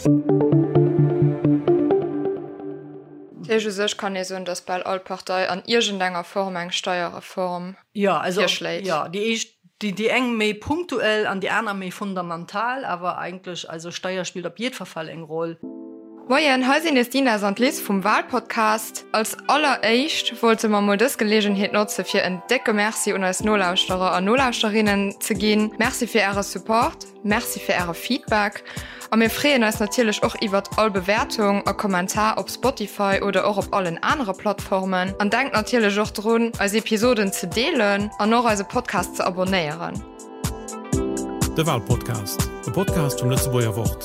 Dat heescht, u sech kann ee soen, datt bal all Partei an iergendenger Form eng Steierreform virschléit. Jo, déi éischt, déi eng méi punktuell an déi aner méi fundamental, awer eigentlech, also Steier spillt op jiddwer Fall eng Roll. Moien, hei sinn nees d'Ines an d'Liz vum Walpodcast. Als alleréischt wollte mer mol dës Geleegenheet notze fir en décke Merci un eis Nolauschterer a Nolauschterinnen ze ginn. Merci fir äre Support, Merci fir äre Feedback a mir freeën eis natierlech och iwwert all Bewäertung a Kommentar op Spotify oder och op allen anere Plattformen. An denkt natierlech och drun, eis Episoden ze deelen an och eise Podcast ze abonnéieren. De Walpodcast, e Podcast vum Lëtzebuerger Wort.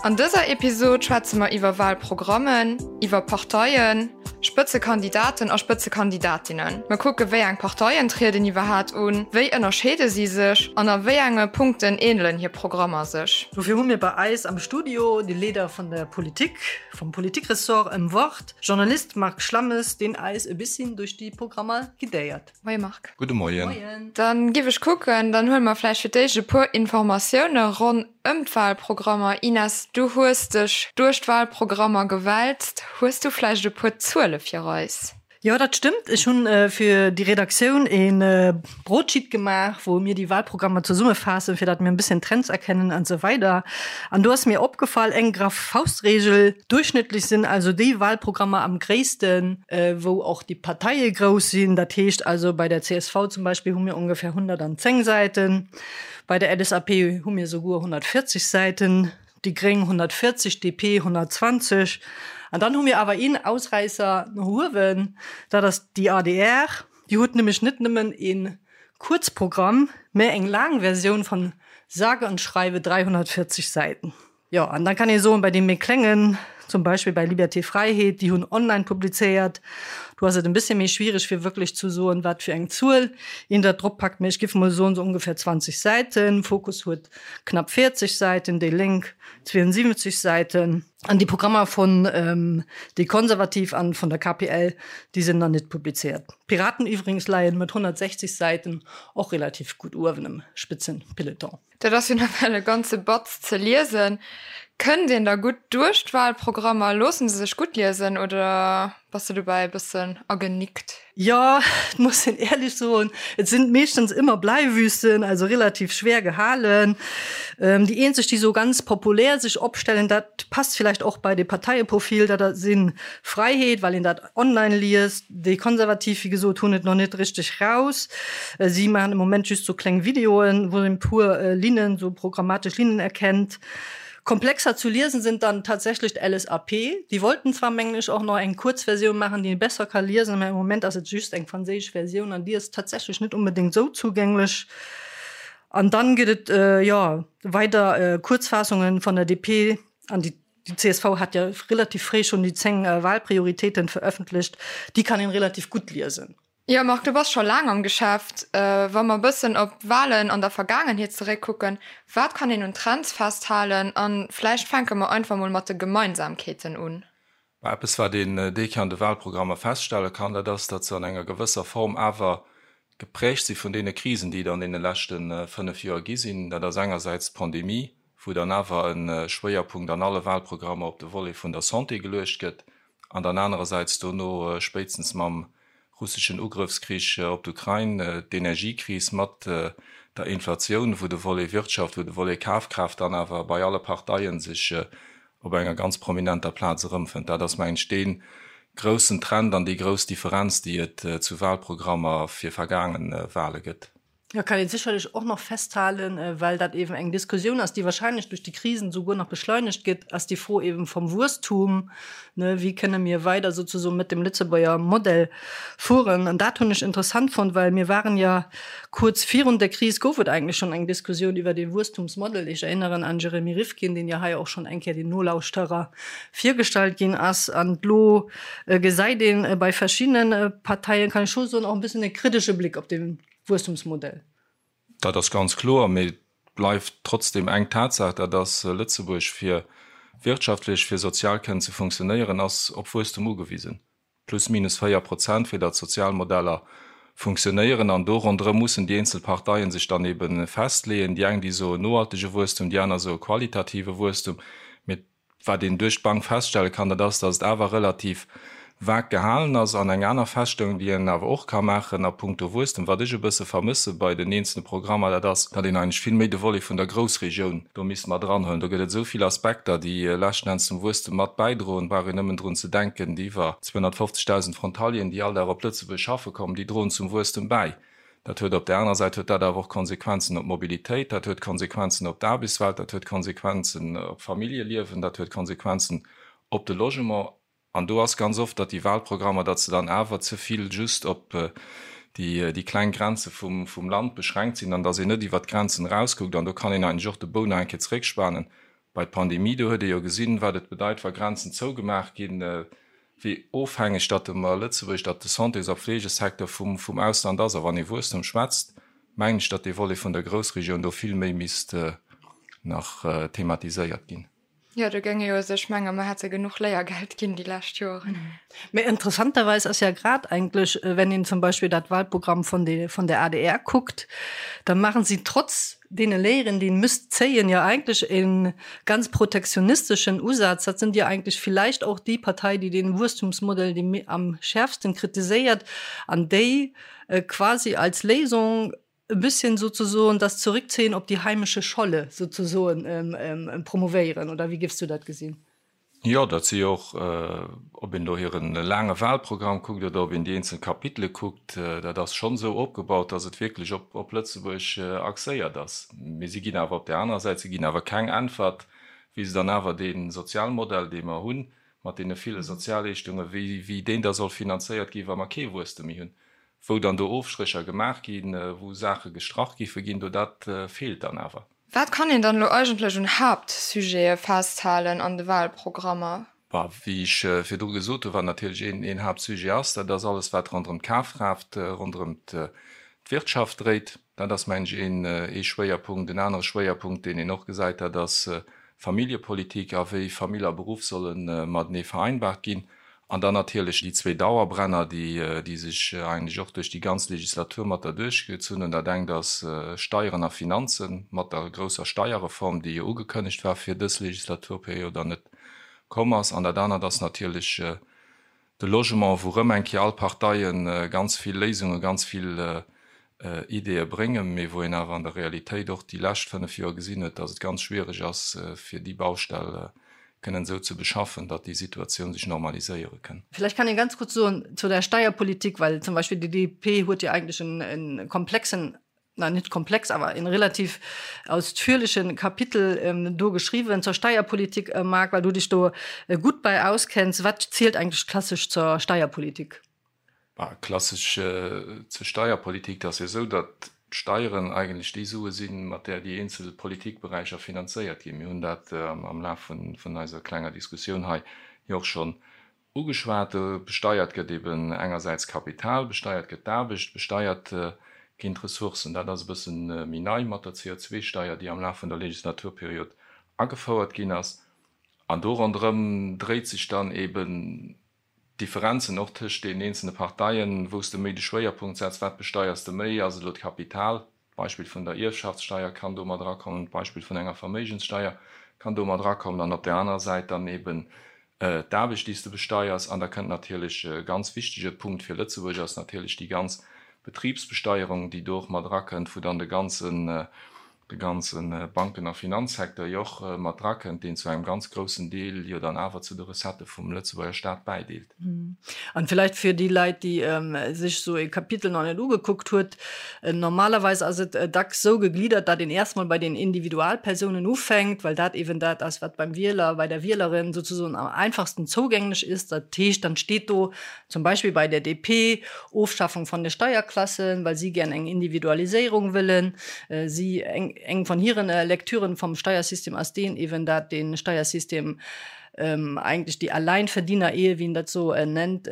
An dëser Episod schwätze mer iwwer Walprogrammen, iwwer Parteien, Spëtzekandidaten a Spëtzekandidatinnen. Mer kucke wéi eng Parteien trieden iwwerhaat un, wéi ënnerscheede si sech an a wéi enge Punkten änelen hir Programmer sech. Dofir hu mir bei eis am Studio de Leader vun der Politik, vum Politikressort ëm Wort, Journalist Marc Schlammes, deen eis e bissin duerch déi Programmer guidéiert. Moie Marc. Gudde Moien. Dann giff ech kucken, dann huele mer vläicht fir d'éischt e puer Informatioune ronn ëm d'Wahlprogrammer. Ines, du hues dech duerch d'Wahlprogrammer gewälzt. Hues du vläicht e puer Zuele fir eis? Jo, dat stëmmt. Ech hunn fir déi Redaktioun e Broadsheet gemaach, wou mir déi Wahlprogrammer zesummefaassen, fir datt mir e bësschen Trends erkennen an esou weider. An do ass mir opgefall, eng graff Faustregel, Duerchschnëttlech sinn also déi Wahlprogrammer am gréissten, wou och déi Parteie grouss sinn. Dat heescht also, bei der csv zum Beispill hu mir ongefähr 110 Säiten, bei der LSAP hu mir souguer 140 Säiten, déi Gréng 140, DP 120. An dann hu mir awer een Ausräisser no uewen, dat ass déi adr. Déi huet nämlech net nëmmen ee Kuerzprogramm, mä eng laang Versioun von sage und schreibe 340 Säiten. Jo, an dann kann ee soen, bei deem méi kléngen, zum Beispill bei Liberté Fräiheet, déi hunn online publizéiert, do ass et en bëssche méi schwiereg fir wierklech zu soen, wat fir eng Zuel een dat drop packt, mä ech giff mol soen, sou ongefähr 20 Säiten. Fokus huet knapp 40 Säiten, déi Lénk 72 Säiten. An déi Programmer vun déi Konservativ an vun der KPL, déi sinn nach net publizéiert. D'Piraten iwwregens leien mat 160 Säiten och relativ gutt uewen am Spitzenpeloton. Dat ass jo nawell e ganze Batz ze liesen. Kënnt een da gutt duerch d'Wahlprogrammer? Loosse se sech gutt liesen oder bass de dobäi e bëssen agenickt? Jo, et muss een éierlech soen, et sinn meeschtens ëmmer Bleiwüsten, also relativ schwer gehalen. Déi eenzeg, déi sou ganz populär sech opstellen, dat passt villäicht och bei de Parteieprofil, dat si Fräiheet, well een dat online liest. Déi Konservativ, wéi gesot, hunn et nach net richteg raus. Si maachen am Moment just sou kleng Videoen, wou een e puer Linnen, sou programmatesch Linnen erkennt. Komplexer zu liesen sind dann tatsächlech d'LSAP. Déi wollten zwar, mengen ech, och nach eng kuerz Versioun maachen, déi ee besser ka liesen, mä am Moment ass et just eng franséisch Versioun an déi ass tatsächlech net onbedéngt sou zougänglech. An dann gëtt et, jo, weider Kuerzfaassungen von der DP an déi Déi csv hat jo relativ fréi schonn déi 10 Wahlprioritéiten verëffentlecht. Déi kann een relativ gutt liesen. Jo Marc, du bass scho laang am Geschäft. Wa mer e bëssen op d'Wahlen an der Vergaangenheet zeréckkucken, wat kann een un Trends festhalen? A vläicht fänke mer einfach mol mat de Gemeinsamkeeten un. Mä eppes wat een déi an de Wahlprogrammer feststelle kann, dat ass, datt se an enger gewësser Form awer geprägt si vun deene Krisen, déi et an deene leschte 5 Joer gi sinn. Dat ass engersäits d'Pandemie, wou dann awer e Schwéierpunkt an alle Wahlprogrammer op de Volet vun der Santé geluecht gëtt, an dann anerersäits dono spéitstens mam russeschen Ugrëffskrich op d'Ukrain d'Energiekris mat der Inflatioun, wou de Volet Wirtschaft, wou de Volet Kafkraaft dann awer bei alle Parteien sech op enger ganz prominenter Plaz erëmfënnt. Dat ass, mengen ech, dee groussen Trend an déi grouss Differenz, déi et zu Wahlprogrammer fir vergaange Wahle gëtt. Da kann een sécherlech och nach festhalen, well dat eeben eng Diskussioun ass, déi wahrscheinlech duerch déi Krisen souguer nach beschleunegt gëtt, ass déi Fro eeben vom Wuesstum, ne, wéi kënne mir weider souzesoen mit dem Lëtzebuerger Modell fueren. An dat hunn ech interessant fonnt, well mir waren ja kuerz virun der Kris, gouf et eigentlech schonn eng Diskussioun iwwer dee Wuesstumsmodell. Ech erinneren an Jeremy Rifkin, deen jo hei och schonn eng Kéier den Nolauschterer virgestallt ginn ass. An elo gesäit een bei verschiddene Parteien, kann ech scho soen, och e bëssen e kritesche Bléck op dee Wuesstumsmodell. Dat ass ganz kloer, mee et bleift trotzdem eng Tatsaach, dat ass, Lëtzebuerg, fir wirtschaftlech, fir sozial kënnen ze funktionéieren, ass op Wuesstum ugewisen. Plus minus 4 Prozent, fir datt d'Sozialmodeller. funktionéieren. An do ronderëm mussen déi eenzel Parteien sech dann ebe festleeën. Déi eng, déi soen nohaltege Wuesstum, déi aner soe qualitative Wuesstum. Mee Wat een duerch d'Bank feststelle kann, dat ass, datt et awer relativ vag gehalen ass. An eng aner Feststellung, déi een awer och ka maachen a puncto Wuesstem, wat ech e bësse vermësse bei den eenzelne Programmer, dat ass, datt een eigentlech vill méi de Volet vun der Groussregioun do misst mat eranhuelen. Do gëtt et esou vill Aspekter, déi leschten Enns zum Wuesstem mat bäidroen. Et brauch een nëmmen drun ze denken, déi iwwer 250.000 Frontalieren, déi all Dag op Lëtzebuerg schaffe kommen, déi droen zum Wuesstem bäi. Dat huet op där anerer Säit huet dat awer och Konsequenzen op d'Mobilitéit, dat huet Konsequenzen op d'Aarbechtswelt, dat huet Konsequenzen op d'Familljeliewen, dat huet Konsequenzen op de Logement. An do ass ganz oft, datt déi Wahlprogrammer, datt se dann awer ze vill just op déi, déi kleng Grenze vum, vum Land beschränkt sinn an datt een net iwwert d'Grenzen erauskuckt. An do kann een eigentlech och de Bou nach eng Kéier zeréckspanen bei d'Pandemie. Do huet ee jo gesinn, wat et bedeit, wa Grenzen zougemaach ginn. wéi ofhängeg datt de mer Lëtzebuerg, datt de Santés a Fleegesecteur vum vum Ausland ass. A wann ee Wuesstem schwätzt, mengen ech, datt dee Volet vun der Groussregioun do vill méi misst nach thematiséiert ginn. Jo, do géing ee jo sech mengen, mer hätte genuch Léiergeld ginn déi lescht Joren. Mä interessanterweis ass ja grad eigentlech, wenn een zum Beispill dat Wahlprogramm vun de vun der adr kuckt, da maachen si trotz deene Léieren, déi een müsst zéien, jo eigentlech e ganz protektionisteschen Usaz. Dat sind jo eigentlech vielleicht och déi Partei, déi dee Wuesstumsmodell dee am schärfsten kritiséiert an déi quasi als Léisung e bisschen sozusoen das Zurückziehen op die heimische Scholle sozusoen promovéieren. Oder wéi géifs du dat gesinn? Jo, dat si jo och, ob een elo hire laange Wahlprogramm kuckt oder ob een déi eenzel Kapitele kuckt, dat ass schonn esou opgebaut, datt et wierklech op Lëtzebuerg axéiert ass. Mee si ginn awer op där anerer Säit, si ginn awer keng Äntwert, wéi se dann awer dee Sozialmodell, dee mer hunn, mat deene ville Sozialleeschtungen, wéi deen da soll finanzéiert ginn, wa mer kee Wuesstem méi hunn. Wou dann do Ofstrécher gemaach ginn, wou Saache gestrach giffe ginn, do dat feelt dann awer. Wat kann een dann elo eigentlech un Haaptsujete festhalen an de Wahlprogrammer? Bah, wéi ech virdru gesot hunn, wat natierlech een Haaptsujet ass, dat ass alles wat ronderëm d'Kafkraaft, ronderëm d'Wirtschaft dréit. Dat ass, mengen ech, een ee Schwéierpunkt. En anere Schwéierpunkt, deen een och gesäit, dat ass Familljepolitik a wéi Famill a Beruff solle matenee vereinbart ginn. An dann natierlech déi zwee Dauerbrenner, déi sech eigentlech och duerch déi ganz Legislatur mat derduerchgezunn hunn. Dat engt ass Steieren a Finanzen, mat der grousser Steierreform, déi jo ugekënnegt war fir dës Legislaturperiod an net komm ass. An dat anert ass natierlech de Logement, wou erëm eng Kéier all Parteie ganz vill Léisungen, ganz vill Ideeë bréngen, mee wou een awer an der Realitéit och déi lescht 5 Joer gesinn huet, datt et ganz schwiereg ass, fir déi Baustell kënnen esou ze beschaffen, datt déi Situatioun sech normaliséiere kënn. Vielleicht kann een ganz kurz soen zu der Steierpolitik, well zum Beispill déi DP huet jo eigentlech en komplexen, na net komplex, awer en relativ ausführlichen Kapitel do geschriwwen zur Steierpolitik. Marc, well du dech do gutt bei auskenns, wat zielt eigentlech klassesch zur Steierpolitik? Klassesch zur Steierpolitik, dat ass jo esou, datt d'Steieren eigentlech déi Sue sinn, mat där déi eenzel Politikberäicher finanzéiert ginn. Mir hunn dat am Laf vun eiser klenger Diskussioun hei jo och schonn ugeschwat. Besteiert gëtt eben engersäits Kapital, besteiert gëtt d'Aarbecht, besteiert ginn d'Ressourcen. Dat ass e bësse méi nei mat der CO2-Steier, déi am Laf vun der Legislaturperiod agefouert ginn ass. An do ronderëm dréit sech dann eben D'Differenzen och tëscht deenen eenzelne Parteien, wou s de méi de Schwéierpunkt setz, wat besteiers de méi, ass et elo d'Kapital, d'Beispill vun der Ierfschaftssteier kann do mat erakommen, d'Beispill vun enger Verméigenssteier kann do mat erakommen an op där anerer Säit dann eben d'Aarbecht, déi s de besteiers. An da kënnt natierlech e ganz wichtege Punkt fir Lëtzebuerg ass natierlech déi ganz Betribsbesteierung, déi do och mat erakënnt, wou dann de ganzen de ganze Banken a Finanzsecteur jo och mat drakënnt, deen zu engem ganz groussen Deel jo dann awer zu de Recettë vum Lëtzebuerger Staat bäideelt. An villäicht fir déi Leit, déi sech esou e Kapitel nach net ugekuckt huet, Normalerweis ass et dacks esou gegliddert, datt een erst mol bei den Individualpersounen ufänkt, well dat eeben dat ass, wat beim Wieler, bei der Wielerin sozusoen am einfachsten zougänglech ist. Dat heescht, dann steet do zum Beispill bei der DP, Ofschaffung von de Steierklassen, well si gären eng Individualiséierung wëllen. Si, eng von hiren Lektüren vom Steiersystem ass deen eeben, dat de Steiersystem eigentlech déi Alleinverdiener-Ehe, wéi en dat esou nennt,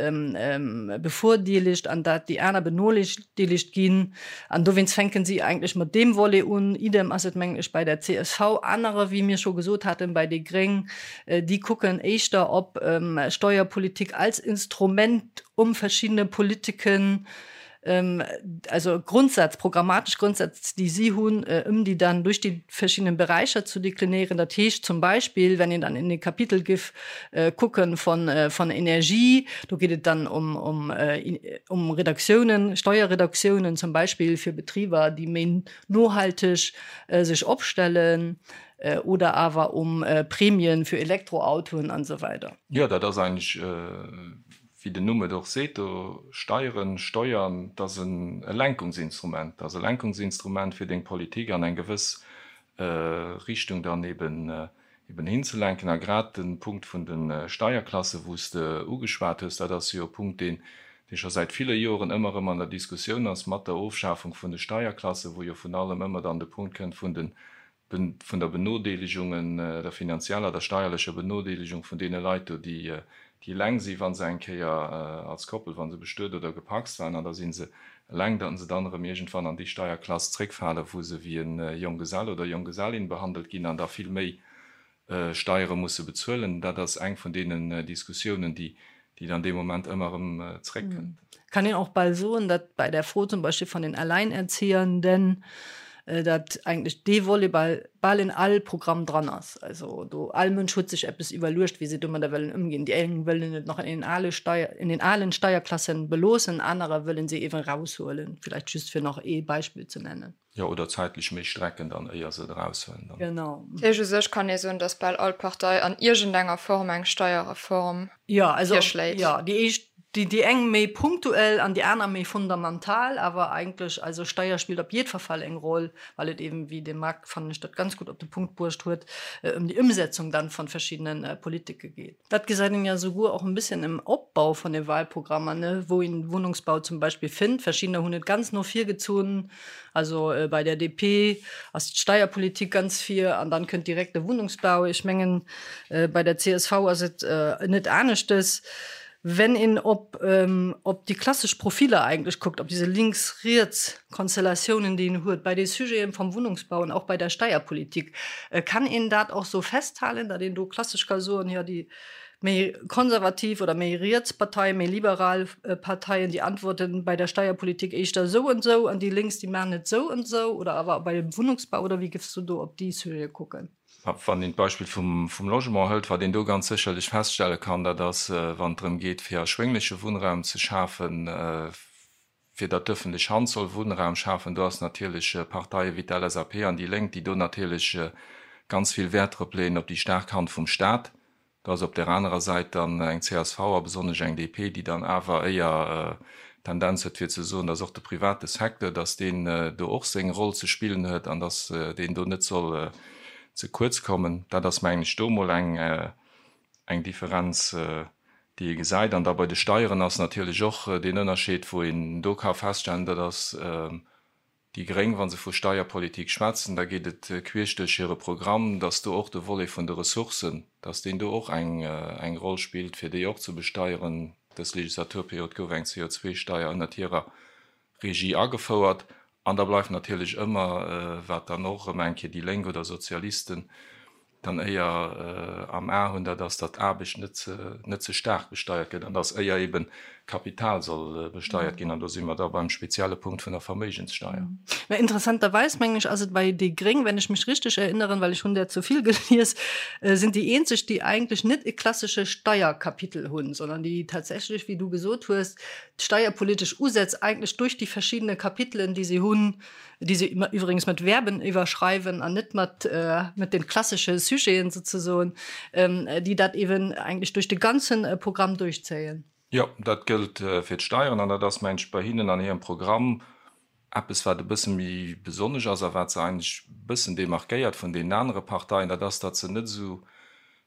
bevordeelegt an dat déi aner benodeelegt ginn. An dowéinst fänken si eigentlech mat deem Volet un. Idem ass et, mengen ech, bei der csv. Anerer, wéi mir scho gesot haten, bei déi Gréng, déi kucken éischter op Steuerpolitik als Instrument, um verschiddene Politiken. also Grundsätz, programmatesch Grundsätz, déi si hunn, ëm déi dann duerch déi verschiddenen Beräicher zu deklinéieren. Dat heescht zum Beispill, wenn een dann in e Kapitel giff kucken von, von Energie, do geet et dann ëm, ëm, ëm Reduktiounen, Steuerreduktiounen zum Beispill fir Betriber, déi méi nohalteg sech opstellen, oder awer um Prämien fir Elektroautoen an esou weider. Jo, dat ass eigentlech, wéi den Numm et och seet, do Steieren, Steuern, dat ass e Lenkungsinstrument. Dat ass e Lenkungsinstrument, fir deng Politik an eng gewëss Richtung dann eben eben hinzelenken. A grad de Punkt vun de Steierklassen, wou s de ugeschwat hues, dat ass jo e Punkt, deen dee scho säit ville Joren ëmmer erëm an der Diskussioun ass, mat der Ofschafung vun de Steierklassen, wou jo vun allem ëmmer dann de Punkt kënnt vun de vun der Benodeelegung, der finanzieller, der steierlecher Benodeelegung vun deene Leit do, déi eleng sinn, wa se eng Kéier als Koppel, wa se bestuet oder gepacst waren, an da si se eleng, datt se dann erëm iergendwann an déi Steierklass zréckfalen, wou se wéi e Jonggesell oder Jonggesellin behandelt ginn an da vill méi Steiere musse bezuelen. Dat ass eng vun deenen Diskussiounen, déi dann dee Moment ëmmer erëm zréckkënnt. Kann een och bal soen, datt bei der Fro zum Beispill von den Alleinerziehenden, datt eigentlech dee Volet bal bal in all Programm dran ass. Also do all Mënsch huet sech eppes iwwerluecht, wéi se domadder wëllen ëmginn. Déi eng wëllen et nach in den ale Steier, in den alen Steierklassen beloossen, anerer wëllen se eeben raushuelen, vielleicht just fir nach ee Beispill ze nennen. Jo, oder zäitlech méi strecken dann, éier se et eraushuelen dann. Genau. Dat heescht, u sech kann ee soen, datt bal all Partei an iergendenger Form eng Steierreform Jo, also, virschléit. jo, déi éischt, déi, déi eng méi punktuell an déi aner méi fundamental, awer eigentlech, also Steier spillt op jiddwer Fall eng Roll, well et eben, wéi de Marc, fannen ech, dat ganz gutt op de Punkt bruecht huet, ëm déi Ëmsetzung dann von verschiddenen Politike geet. Dat gesäit een ja souguer och en bësschen im Opbau von de Wahlprogrammer, ne, wou een Wohnungsbau zum Beispill fënnt. Verschiddener hunn et ganz no vir gezunn, also bei der DP ass d'Steierpolitik ganz vir an dann kënnt direkt de Wohnungsbau. Ech mengen bei der csv ass et net aneschtes. Wenn een op op déi klassesch Profiller eigentlech kuckt, op diese Links-Riets-Konstellatiounen, déi een huet bei de Sujeten vom Wohnungsbau an och bei der Steierpolitik, kann een dat och sou festhalen, datt een do klassesch ka soen, jo déi méi konservativ oder méi riets Parteien, méi liberal Parteien, déi antworten bei der Steierpolitik éischter esou an esou an déi lénks, déi maachen et esou an esou oder awer bei dem Wohnungsbau oder wéi géifs du do op déi Sujete kucken? Wann een d'Beispill vum Logement hëlt, wat een do ganz sécherlech feststelle kann, dat ass, wann et drëm geet, fir erschwéngleche Wunnraum ze schafen, fir datt d'ëffentlech Hand soll Wunnraum schafen, do ass natierlech Parteie wéi d'LSAP an déi Lénk, déi do natierlech ganz vill Wäert drop leeën, op déi staark Hand vum Stat. Do ass op där anerer Säit dann eng csv a besonnesch eng DP, déi dann awer éier d'Tendenz huet fir ze soen, dass och de private Secteur, dass deen do och seng Roll ze spillen huet an dass deen do net soll ze kuerz kommen. Dat ass, mengen ech, do emol eng Differenz, déi ee gesäit. An da bei de Steieren ass natierlech och deen Ënnerscheed, wou een do ka feststellen, dat ass, Déi Gréng, wa se vu Steierpolitik schwätzen, da geet et queesch duerch hire Programm, datt do och de Volet vun de Ressourcen, datt deen do och eng eng Roll spillt, fir déi och ze besteieren. Dës Legislaturperiod gouf eng CO2-Steier ënnert hirer Regie agefouert. An da bleift natierlech ëmmer, wat dann och erëm eng Kéier déi Lénk oder Sozialisten dann éier am A hunn, dat ass, datt Aarbecht net ze, net ze staark besteiert gëtt an datt éier eben Kapital soll besteiert ginn. An do si mer da beim spezielle Punkt vun der Verméigenssteier. Mä interessanterweis, mengen ech, ass et bei déi Gréng, wenn ech mech richteg erinneren, well ech hunn där zu vill gelies, sinn déi eenzeg, déi eigentlech net e klassesche Steierkapitel hunn, sondern déi tatsächlech, wéi du gesot hues, d'steierpolitesch Usätz eigentlech durch déi verschiddene Kapitelen, déi si hunn, déi se iwwregens mat Verben iwwerschreiwen an net mat mat den klassesche Sujeten sozesoen, déi dat eben eigentlech duerch de ganzen Programm duerchzéien. Jo, dat gëllt fir d'Steieren an dat ass, mengen ech, bei hinnen an hirem Programm eppes, wat e bësse méi besonnesch ass a wat se eigentlech e bëssen demarquéiert vun deenen anere Parteien, dat ass, datt se net esou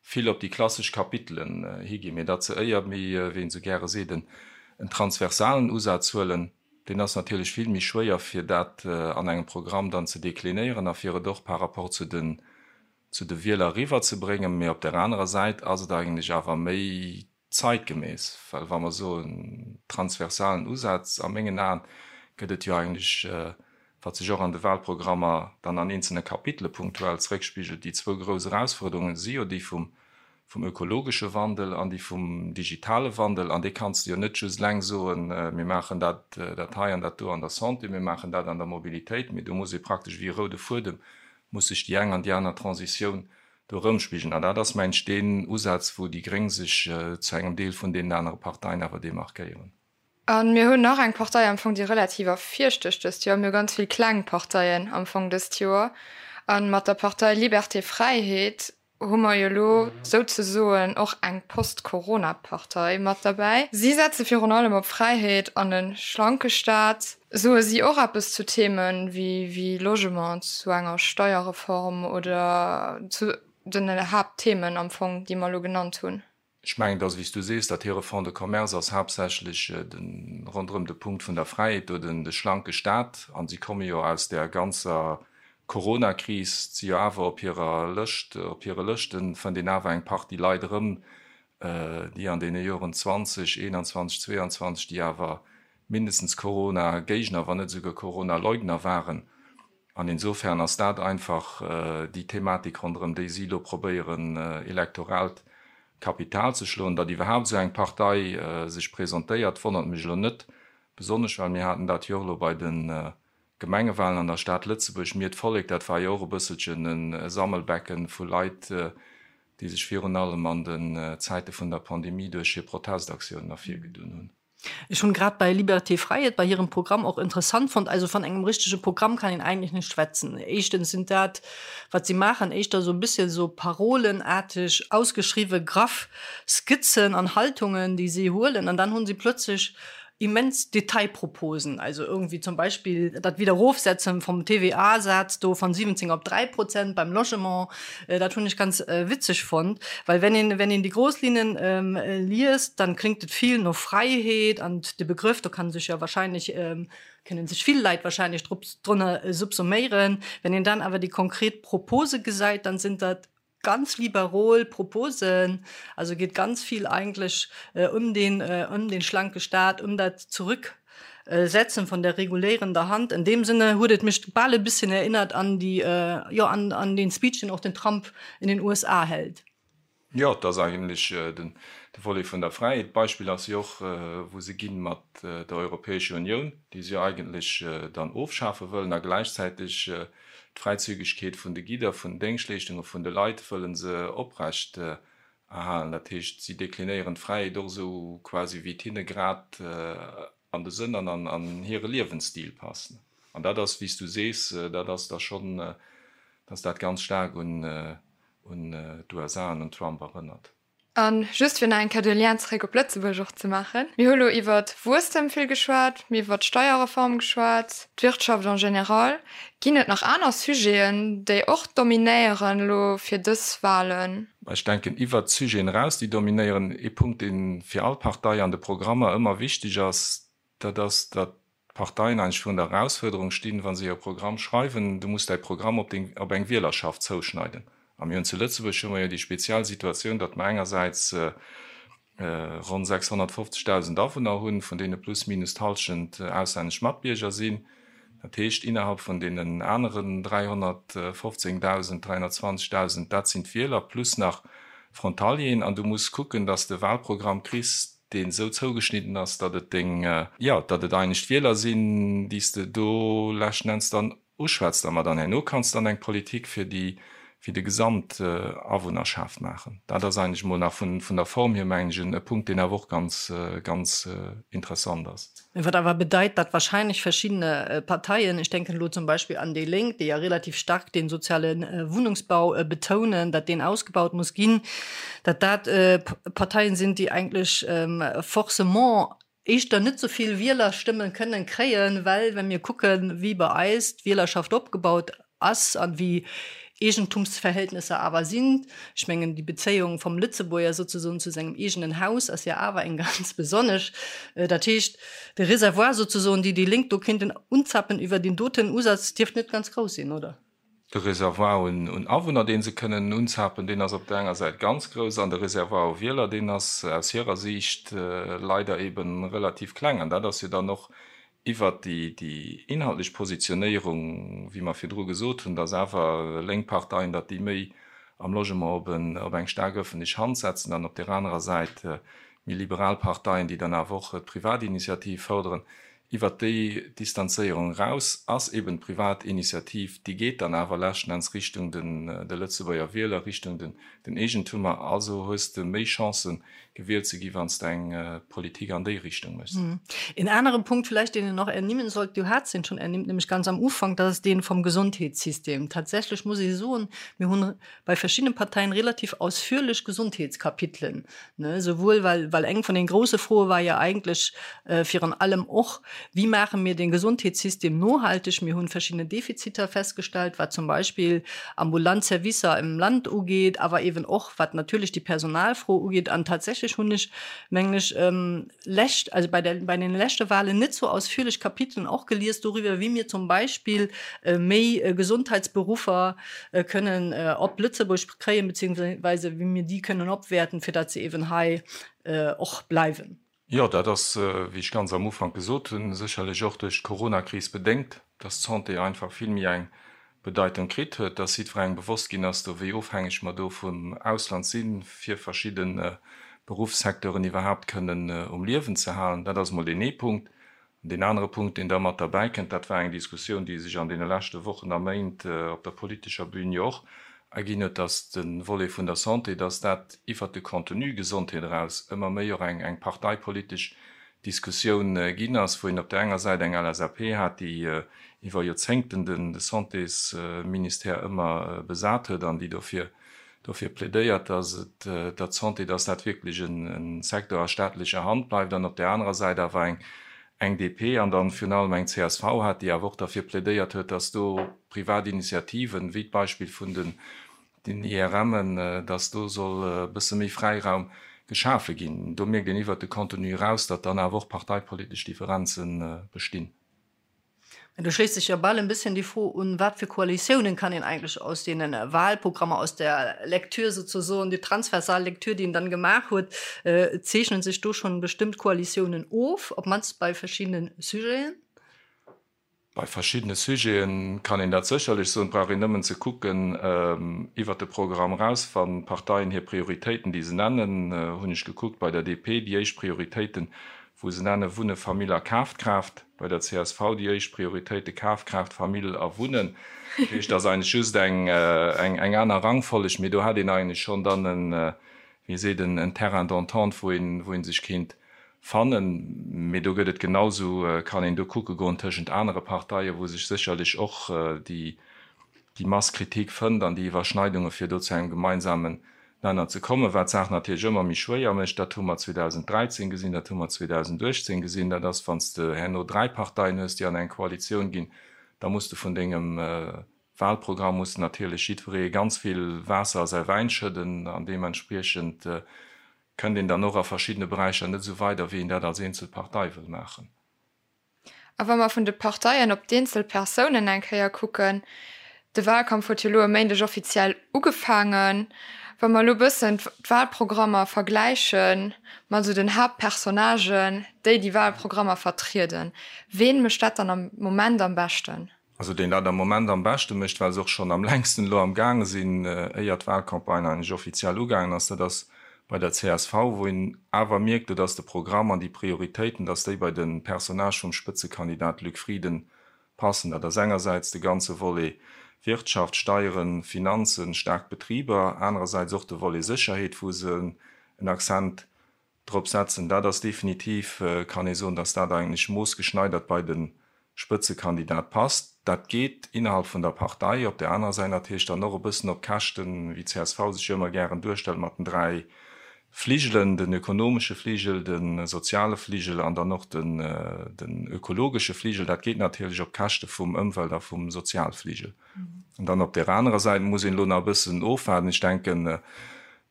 vill op déi klassesch Kapitelen higinn, mee datt se éier méi, wéi een esou gäre seet, en transversalen Usaz huelen. Deen ass natierlech vill méi schwéier, fir dat an engem Programm dann ze deklinéieren a fir et och par rapport zu den, zu de Wieler eriwwerzebréngen. Mee op där anerer Säit ass et eigentlech awer méi zeitgemäss, well wa mer soen transversalen Usaz, a mengen Aen gëtt et jo eigentlech, wat sech och an de Wahlprogrammer dann an eenzelne Kapitele punktuell zréckspigelt, déi zwou grouss Erausfuerderungen si jo déi vum. vum ökologesche Wandel an déi vum digitale Wandel. An dee kanns de jo net just eleng soen, mir maachen dat, dat hei an dat do an der Santé, mir maachen dat an der Mobilitéit, mee do muss ee praktesch wéi e roude Fuedem, muss sech déi eng an déi aner Transitioun do erëmspigelen. An dat ass, mengen ech, deen Usaz, wou déi Gréng sech zu engem Deel vun deenen anere Parteien awer demarkéieren. A mir hunn nach eng Partei am Fong, déi relativ ervirstécht dëst Joer. Mir hu ganz vill kleng Parteien am Fong dëst Joer. A mat der Partei Liberté Fräiheet hu mer jo elo souzesoen och eng Post-Corona-Partei mat derbäi. Si setze virun allem op Fräiheet an e schlanke Staat. Soe si och eppes zu Themen wéi Logement, zu enger Steierreform oder zu den Haaptthemen am Fong, déi mer elo genannt hunn? Ech mengen, dass, wéi s du sees, datt hire Fonds de commerce ass haaptsächlech de ronderëm de Punkt vun der Fräiheet do, den de schlanke Staat. A si komme jo aus där ganzer Coronakris, si jo awer op hirer Lëscht, op hire Lëschte fënnt een awer eng Partie Leit erëm, déi an deene Joren 20, 21, 22, déi awer mindestens Corona-Géigner, wann net esouguer Corona-Leugner waren. An insofern ass dat einfach déi Thematik, ronderëm déi si elo probéieren, elektoraalt Kapital ze schloen. Datt iwwerhaapt esou eng Partei sech presentéiert, wonnert mech elo net besonnesch, well mir haten dat jo och elo bei de Gemengewahlen an der Stad Lëtzebuerg. Mir, d'Vollek, dat war jo och e bësselchen e Sammelbecken vu Leit, déi sech virun allem an den Zäite vun der Pandemie duerch hir Protestaktiounen ervirgedunn hunn. Ech hunn grad bei Liberté Fräiheet, bei hirem Programm och interessant fonnt, also van engem richtege Programm kann een eigentlech net schwätzen. Éischtens sind dat, wat si maachen, éischter esou e bisschen esou parolenaarteg ausgeschriwwe graff Skizzen an Haltungen, déi si huelen, an dann hunn si plötzlech immens Detailproposen, also irgendwie zum Beispill dat Wiederofsetzen vom TVA-Saz do van 17 op 3 Prozent beim Logement, Dat hunn ech ganz witzeg fonnt, well wenn een, wenn een déi grouss Linnen liest, dann klingt et vill no Fräiheet an de Begrëff, do kann sech jo wahrscheinlech, kënnen sech vill Leit wahrscheinlech drop, drënner subsuméieren. Wenn een dann awer déi konkret Propose gesäit, dann sinn dat ganz liberol Proposen, also geet ganz vill eigentlech ëm den, ëm den schlanke Staat, ëm dat Zurück Setzen von der regulierender Hand. In dem Sinne huet et mech bal e bisschen erinnert an déi, jo, an, an den Speech, den och den Trump in den USA hält. Jo, et ass eigentlech den, de Volet vun der Fräiheet. D'Beispill ass jo och, wou se ginn mat der Europäescher Unioun, déi se jo eigentlech dann ofschafe wëllen a gläichzäiteg d'Fräizügegkeet vun de Gidder, vun den Déngschtleeschtungen, vun de Leit wëlle se oprecht Erhalen. Dat heescht, si deklinéieren d'Fräiheet och esou quasi wéi et hinne grad an de Sënn an an hire Liewensstil passt. An dat ass, wéi s du sees, dat ass da schonn, dass dat ganz staark un d'USA an un Trump erënnert. A just fir nach eng Kéier de Lien zeréck op Lëtzebuerg och ze maachen, Mir hu lo iwwert Wuesstem vill geschwat, mir iwwert d'Steierreform geschwat, d'Wirtschaft en général. Ginn et nach aner Sujeten, déi och dominéieren elo fir dës Wahlen? Ech denken, iwwert d'Sujeten eraus, déi dominéieren, ee Punkt, dee fir all Partei an de Programmer ëmmer wichteg ass, dat ass, datt d'Parteien eigentlech virun der Erausfuerderung stinn, wa se hire Programm schreiwen, du muss däi Programm op deng, op eng Wielerschaft zouschneiden. A mir hunn zu Lëtzebuerg hu mer jo déi speziell Situatioun, datt mer engersäits ronn 650.000 Awunner hunn, vun deene plus minus d'Hallschent auslännesch Matbierger sinn. Dat heescht, innerhalb vun deenen aneren 315.000, 320.000, dat sinn d'Wieler plus nach Frontalieren. An du muss kucken, datt s de e Wahlprogramm kriss, deen esou zougeschnidden ass, datt et deng, jo, datt et eigentlech d'Wieler sinn, déi s de do leschten Enns dann Uschwätzt a mer dann herno kanns dann eng Politik fir déi, fir de Gesamtawunnerschaft maachen. Dat ass eigentlech emol nach vun, vun der Form hier, mengen ech, e Punkt, deen awer och ganz, ganz interessant ass. Wat awer bedeit, datt wahrscheinlech verschiddene Parteien, ech denken elo zum Beispill an déi Lénk, déi ja relativ stark den soziale Wunnungsbau betounen, datt deen ausgebaut muss ginn, datt dat Parteien sinn, déi eigentlech forcément éischter net sou vill Wielerstëmmen kënnen kréien, well wa mir kucken, wéi bei eis d'Wielerschaft opgebaut ass an wéi Eegentumsverhältnisser awer sinn, ech mengen déi Bezéiung vum Lëtzebuerger souzesoen zu sengem eegenen Haus ass jo awer eng ganz besonnesch. Dat heescht, de Reservoir souzesoen, déi déi Lénk do kéinten unzappen iwwer deen doten Usaz, dierft net ganz grouss sinn, oder? De Reservoir un Awunner, dee se kënnen unzapen, deen ass op der enger Säit ganz grouss, an de Reservoir u Wieler, deen ass aus hirer Siicht leider ebe relativ kleng. An dat ass jo dann och iwwert déi inhaltlech Positionéierung, wéi mer virdru gesot hunn, datt awer lénk Parteien, datt déi méi. am Logement op en, op eng staark ëffentlech Hand setzen, an op där anerer Säit méi liberal Parteien, déi dann awer och d'Privatinitiativ fërderen. Iwwert déi Distanzéierung eraus ass eben d'Privatinitiativ, déi geet dann awer leschten Enns Richtung den, de Lëtzebuerger Wieler, Richtung den, den Eegentummer. Also hues de méi Chancen, gewielt ze gi wann s de eng Politik an déi Richtung méchs. Een aneren Punkt vielleicht, deen een nach ernimmen sollt, du hats en schon ernimmt, nämlech ganz am Ufank, dat ass deen vom Gesondheetssystem. Tatsächlich muss ee soen, mir hunn bei verschiddenen Parteien relativ ausführlech Gesondheetskapitelen, ne, souwuel well, well eng vun den grouse Froe war jo eigentlech virun allem och, Wie maache mir den Gesondheetssystem nohalteg? Mir hunn verschiddene Defiziter festgestellt, wat zum Beispill ambulant Servicer im Land ugeet, awer eeben och wat natierlech déi Personalfro ugeet. An tatsächlech hunn ech, mengen ech, lescht, also bei der, bei den leschte Wahlen net sou ausführlech Kapitelen och gelies doriwwer, wéi mir zum Beispill méi Gesundheitsberuffer kënnen op Lëtzebuerg kréien, beziehungsweise wéi mir déi kënnen opwäerten, fir datt se eeben hei och bleiwen. Jo, dat ass, wéi ech ganz am Ufank gesot hunn, sécherlech och duerch d'Coronakris bedéngt, dass d'Santé einfach vill méi eng Bedeitung kritt huet, dass jiddwerengem bewosst ginn ass, do wéi ofhängeg mer do vum Ausland sinn, fir verschidde Beruffssecteuren iwwerhaapt kënnen um Liewen ze halen. Dat ass emol deen ee Punkt. An deen anere Punkt, deen da mat derbäi kënnt, dat war eng Diskussioun, déi sech an deene leschte Wochen a Méint op der politescher Bühn jo och erginn huet, dass de Volet vun der Santé, dass dat iwwert de Contenu Gesondheet eraus ëmmer méi och eng parteipolitesch Diskussioun ginn ass, wou een op där enger Säit eng LSAP hat, déi iwwer Joerzéngten de Santésministère ëmmer besat huet an déi dofir dofir plädéiert, dass et, datt d'Santé, dass dat wierklech e Secteur a staatlecher Hand bleift, an op där anerer Säit awer eng eng DP an dann virun allem eng csv hat, déi awer och derfir plädéiert huet, dass do privat Initiativen, wéi d'Beispill vun den den IRMen, dass do soll e bësse méi Fräiraum geschafe ginn. Do mierkt een iwwert de Contenu eraus, datt dann awer och parteipolitesch Differenze bestinn. Mä do schléisst sech jo bal en bësschen déi Fro un, Wat fir Koalitiounen kann een eigentlech aus deene Wahlprogrammer, aus der Lektür sozusagen, déi transversal Lektür, déi een dann gemaach huet, zeechnen sech do schonn bestëmmt Koalitiounen of, op d'mannst bei verschiddene Sujeten? Bei verschiddene Sujete kann een dat sécherlech soen. Et brauch een nëmmen ze kucken iwwert de Programm eraus, wann d'Parteien hir Prioritéiten, déi se nennen, hunn ech gekuckt bei der DP, déi éischt Prioritéiten, wou se nenne Wunne, Famill a Kafkraaft, bei der csv déi éischt Prioritéite Kafkraaft, Famill a Wunnen. Dat heescht, et ass eigentlech just eng aner Rangfolleg, mee do hätt een eigentlech schonn dann en, wéi seet en, en Terrain d'entente, wou een, wou ee sech kéint fannen. Mee do gëtt et genau esou, kann een do kucke goen tëschent anere Parteien, wou sech sécherlech och déi, déi Masse critique fënnt an déi Iwwerschneidunge fir do zu engem gemeinsamen Nenner ze kommen, wat d'Saach natierlech ëmmer méi schwéier mécht. Dat hu mer 2013 gesinn, dat hu mer 2018 gesinn, dat ass, wann s de herno dräi Parteien hues, déi an eng Koalitioun ginn, da muss de vun dengem Wahlprogramm muss de natierlech jiddweree ganz vill Waasser a säi Wäin schëdden an deementspriechend kënnt een dann och a verschiddene Beräicher net esou weider, wéi een dat als eenzel Partei wëll maachen. A wa mer vun de Parteien op d'eenzel Persounen eng Kéier kucken, de Wahlkampf huet jo elo e Méindeg offiziell ugefaangen, wa mer elo e bëssen d'Wahlprogrammer vergläiche mat esou den Haaptpersonnagen, déi déi Wahlprogrammer vertrieden, ween mécht dat dann am Moment am beschten? Also deen dat am Moment am beschte mécht, well se och schonn am längsten elo am gaange sinn, éier d'Wahlcampagne eigentlech offiziell ugaangen ass, dat ass bei der csv, wou een awer mierkt, do datt de Programm an déi Prioritéiten, datt déi bei de Personnage vum Spëtzekandidat Luc Frieden passen. Dat ass engersäits de ganze Volet Wirtschaft, Steieren, Finanzen, staark Betriber, anerersäits och de Volet Sécherheet, wou se en Accent drop setzen. Dat ass definitiv, kann ee soen, datt dat eigentlech moossgeschneidert bei de Spëtzekandidat passt. Dat geet innerhalb vun der Partei, op där anerer Säit natierlech dann och e bëssen op Käschten, wéi csv sech jo ëmmer gären duerstellt mat den 3 Fligelen, den ökonomesche Fligel, de soziale Fligel an dann och den ökologesche Fligel. Dat geet natierlech op Käschte vum Ëmwelt a vum Sozialfligel. An dann op där anerer Säit muss een elo nach e bëssen ofwaarden. Ech denken,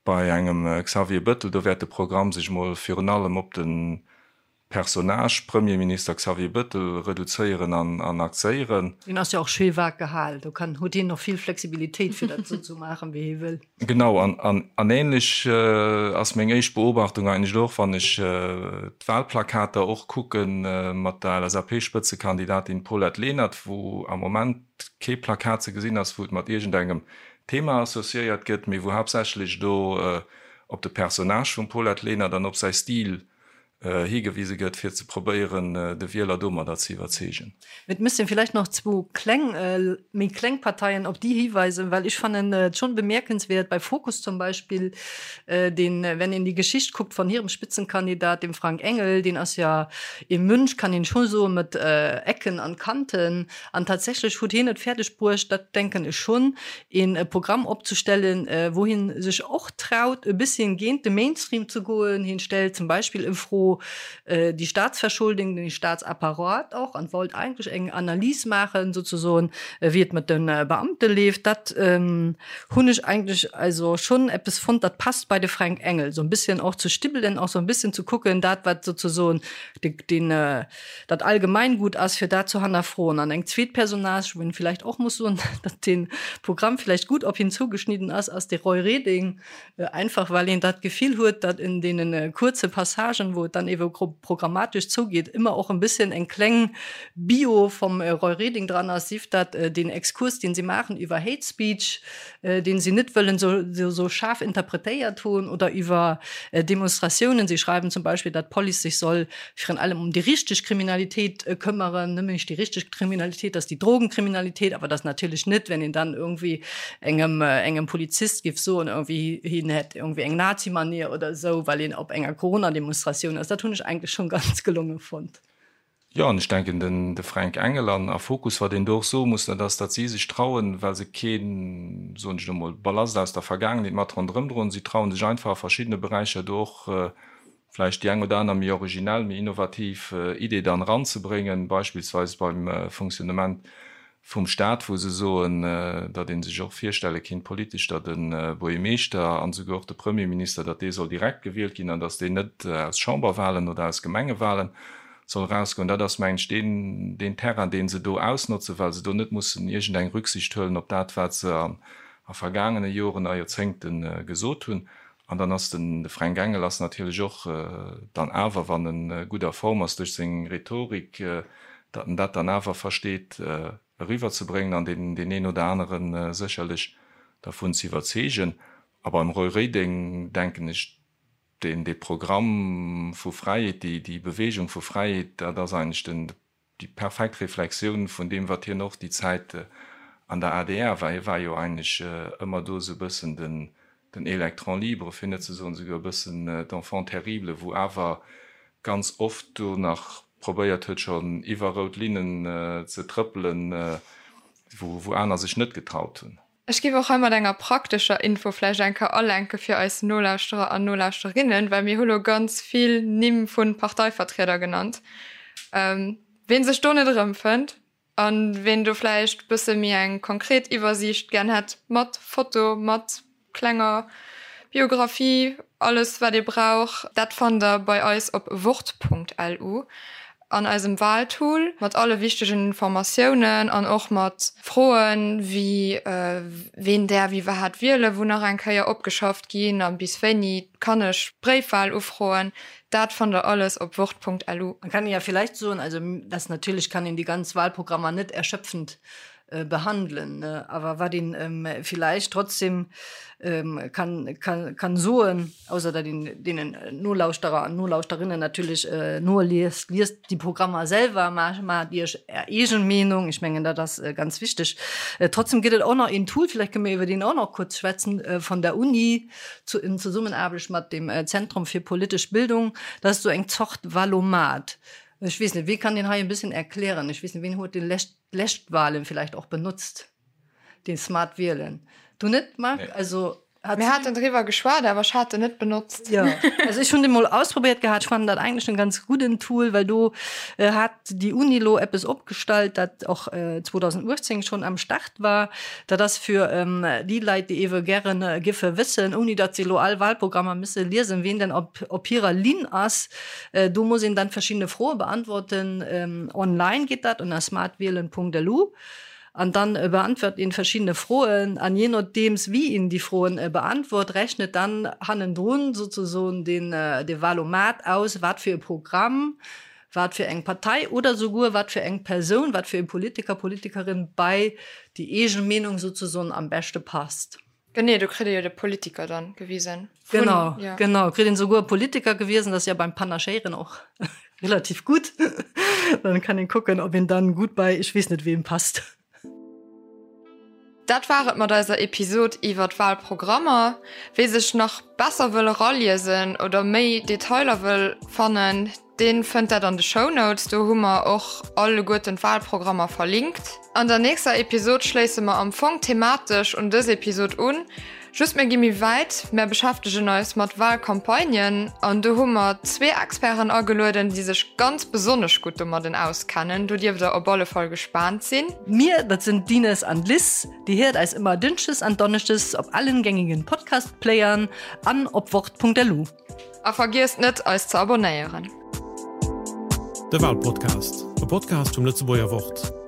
Bei engem Xavier Bëttel, do wäert de Programm sech mol virun allem op de Personnage Premierminister Xavier Bëttel reduzéieren an axéieren. Deen ass jo och schéi vag gehal, do kann, huet hien och vill Flexibilitéit fir dat esou ze maachen, wéi hie wëll. Genau, an ähnlech ass meng éischt Beobachtung eigentlech och, wann ech d'Wahlplakater och kucke mat der LSAP-Spëtzekandidatin Paulette Lenert, wou am Moment kee Plakat ze gesinn ass, wou et mat iergendengem. Thema associéiert gëtt, mee wou haaptsächlech do op de Personnage vum Paulette Lenert an op säi Stil higewise gëtt, fir ze probéieren, de Wieler domadder ze iwwerzeegen. Et misst een vielleicht nach zwou kleng, méi kleng Parteien op déi hiweisen, well ech fannen et schon bemerkenswert bei Fokus zum Beispill, deen, wenn een déi Geschicht kuckt von hirem Spitzenkandidat, dem Frank Engel, deen ass ja ee Mönch, kann een schon soen, mat Ecken an Kanten, an tatsächlech huet hien et fäerdeg bruecht, dat denken ech schon, een Programm opzestellen, wou hien sech och traut e bësschen géint de Mainstream ze goen. Hien stellt zum Beispill en Fro déi Staatsverschuldung, den Staatsapparat och an wollt eigentlech eng Analys maachen souzesoen, wéi et mat de Beamte leeft. Dat hunn ech eigentlech also schonn eppes fonnt, dat passt bei de Fränk Engel, sou en bësschen och ze stibbelen, och sou en bësschen ze kucken, dat wat souzesoen den dat Allgemeingut ass, fir dat ze hannerfroen. An eng zweet Personnage, wou een villäicht och muss soen, datt dee Programm villäicht gutt op hien zougeschnidden ass, ass de Roy Reding, einfach well een dat Gefill huet, datt en deene kuerze Passagen, wou et dann ewe programmatesch zougeet, ëmmer och en bësschen eng kleng Bio vum Roy Reding dran ass, sief dat deen Exkurs, deen si maachen iwwer Hate Speech, deen si net wëllen esou schaarf interpretéiert hunn, oder iwwer Demonstratiounen. Si schreiwen zum Beispill, datt d'Police sech soll virun allem um déi richteg Kriminalitéit këmmeren, nëmmen nicht déi richteg Kriminalitéit, dat ass déi Drogenkriminalitéit, awer dat ass natierlech net, wenn een dann irgendwie engem, engem Polizist géif soen, irgendwie hien hätt irgendwie eng Nazi-Manier oder esou, well een op enger Corona-Demonstratioun ass. Dat hunn ech eigentlech schonn ganz gelonge fonnt. Jo, an ech denken, den de Fränk Engel an a Fokus, wat een do och soe muss, dat ass, datt si sech trauen, well se keen, soen ech elo mol, Ballast aus der Vergaangenheet mat ronderëm droen, si trauen sech einfach a verschiddene Beräicher do och vläicht déi eng oder aner méi originell, méi innovativ Idee dann eranzebréngen, beispillsweis beim Fonctionnement vum Stat, wou se soen, datt ee sech och virstelle kinnt politesch, datt e Buergermeeschter an esouguer och de Premierminister, datt dee soll direkt gewielt ginn an datt deen net aus Chamberwahlen oder aus Gemengewahlen soll erausgoen. Dat ass, mengen ech, deen, deen Terrain, dee se do ausnotzen, well se do net mussen iergendeng Rücksicht huelen op dat, wat se a vergaangene Joren a Joerzéngte gesot hunn. An dann ass den, de Fränk Engel ass natierlech och dann awer, wann e gutt a Form ass duerch seng Rhetorik, datt en dat dann awer versteet eriwwerzebréngen an deen, deen een oder anere sécherlech dervun ze iwwerzeegen. A beim Roy Reding denken ech, deen, dee Programm vu Fräiheet, déi, déi Bewegung vu Fräiheet, dat ass eigentlech den, déi perfekt Reflexioun vun deem, wat hien och déi Zäit an der adr war. Hie war jo eigentlech ëmmer do esou e bëssen den, den Électron libre, fir net ze soen esouguer e bëssen d'Enfant terrible, wou awer ganz oft do nach probéiert huet, schonn iwwer rout Linnen ze trëppelen, wou, wou aner sech net getraut hunn. Ech géif och hei mat enger praktescher Info vläicht eng Kéier alenke fir eis Nolauschterer an Nolauschterinnen, well mir hu lo ganz vill Nimm vu Parteivertrieder genannt. Ween sech do net erëmfënnt a ween do vläicht bësse méi eng konkret Iwwersiicht gär hätt, mat Foto, mat klenger Biographie, alles wat ee brauch, dat fannt der bei eis op wort.lu an eisem Wahltool mat alle wichtegen Informatiounen an och mat Froen wéi ween däerf iwwerhaat wielen, wou nach eng Kéier opgeschafft ginn a bis wéini kann ech Bréifwahl ufroen, dat fannt der alles op wort.lu. Man kann ja vielleicht soen, also dass natierlech kann een déi ganz Wahlprogrammer net erschöpfend behandelen, awer wat een villäicht trotzdem kann, kann, kann soen, ausser datt een deenen Nolauschterer an Nolauschterinnen natierlech noliest, liest déi Programmer selwer, maacht Iech Är eegen Meenung, ech mengen dat ass ganz wichteg. Trotzdem gëtt et och nach een Tool, villäicht kënne mir iwwer deen och nach kuerz schwätzen, vun der Uni zu, in Zesummenaarbecht mat dem Zentrum für politische Bildung, dat ass esou eng Zort Wahlomat. Ech weess net, wee kann deen hei e bëssen erklären? Ech weess net, ween huet dee lescht d'lescht Wahlen vielleicht och benutzt, den Smart Wielen. Du net, Marc? Nee. Also, hat Mir haten driwwer geschwat, awer ech hat en net benotzt. Ja, also ech hunn dee mol ausprobéiert gehat. Ech fannen dat eigentlech en ganz gudden Tool, well do äh, hat déi Uni lo eppes opgestallt, dat och äh, 2018 schonn am Start war. Dat ass fir ähm, déi Leit, déi ewe gären äh, giffe wëssen, ouni datt se lo all Wahlprogrammer misse liesen, wien denn op, op hirer Linn ass. Do muss een dann verschiddene Froe beantworten. Online geet dat ënner smartwielen.lu an dann beantwort een verschiddene Froen an je nodeems wéi een déi Froen beantwort, rechnet dann hannendrun sozesoen den de Wahlomat aus, wat fir e Programm. wat fir eng Partei oder souguer wat fir eng Persoun, wat fir e Politiker, Politikerin bei déi eegen Meenung souzesoen am beschte passt. Genee, do kritt ee jo de Politiker dann gewisen. Vun, genau, ja. Genau, kritt een souguer Politiker gewisen, dat ass ja beim Panachéieren och relativ gutt. Dann kann een kucken, ob een dann gutt bei ech weess net weem passt. Dat war et mat eiser Episod iwwer d'Walprogrammer. Wee sech nach besser wëll eraliesen oder méi Detailer wëll fannen, dee fënnt dat an de Shownotes. Do hu mer och alleguerten d'Walprogrammer verlinkt. An der nächster Episod schléisse mer am Fong thematesch un dës Episod un. Just mir gi méi wäit, mär beschäftegen eis mat Wahlcampagnen an do hu mer zwee Experten agelueden, déi sech ganz besonnesch gutt domadden auskennen. Do dierft der op alle Fall gespaant sinn. Mir, dat sinn d'Ines an d'Liz. Dir héiert eis ëmmer Dënschdes an Donneschdes op allen gängigen Podcast-Playern an op wort.lu. A vergiesst net eis ze abonnéieren. De Wahlpodcast, e Podcast vum Lëtzebuerger Wort.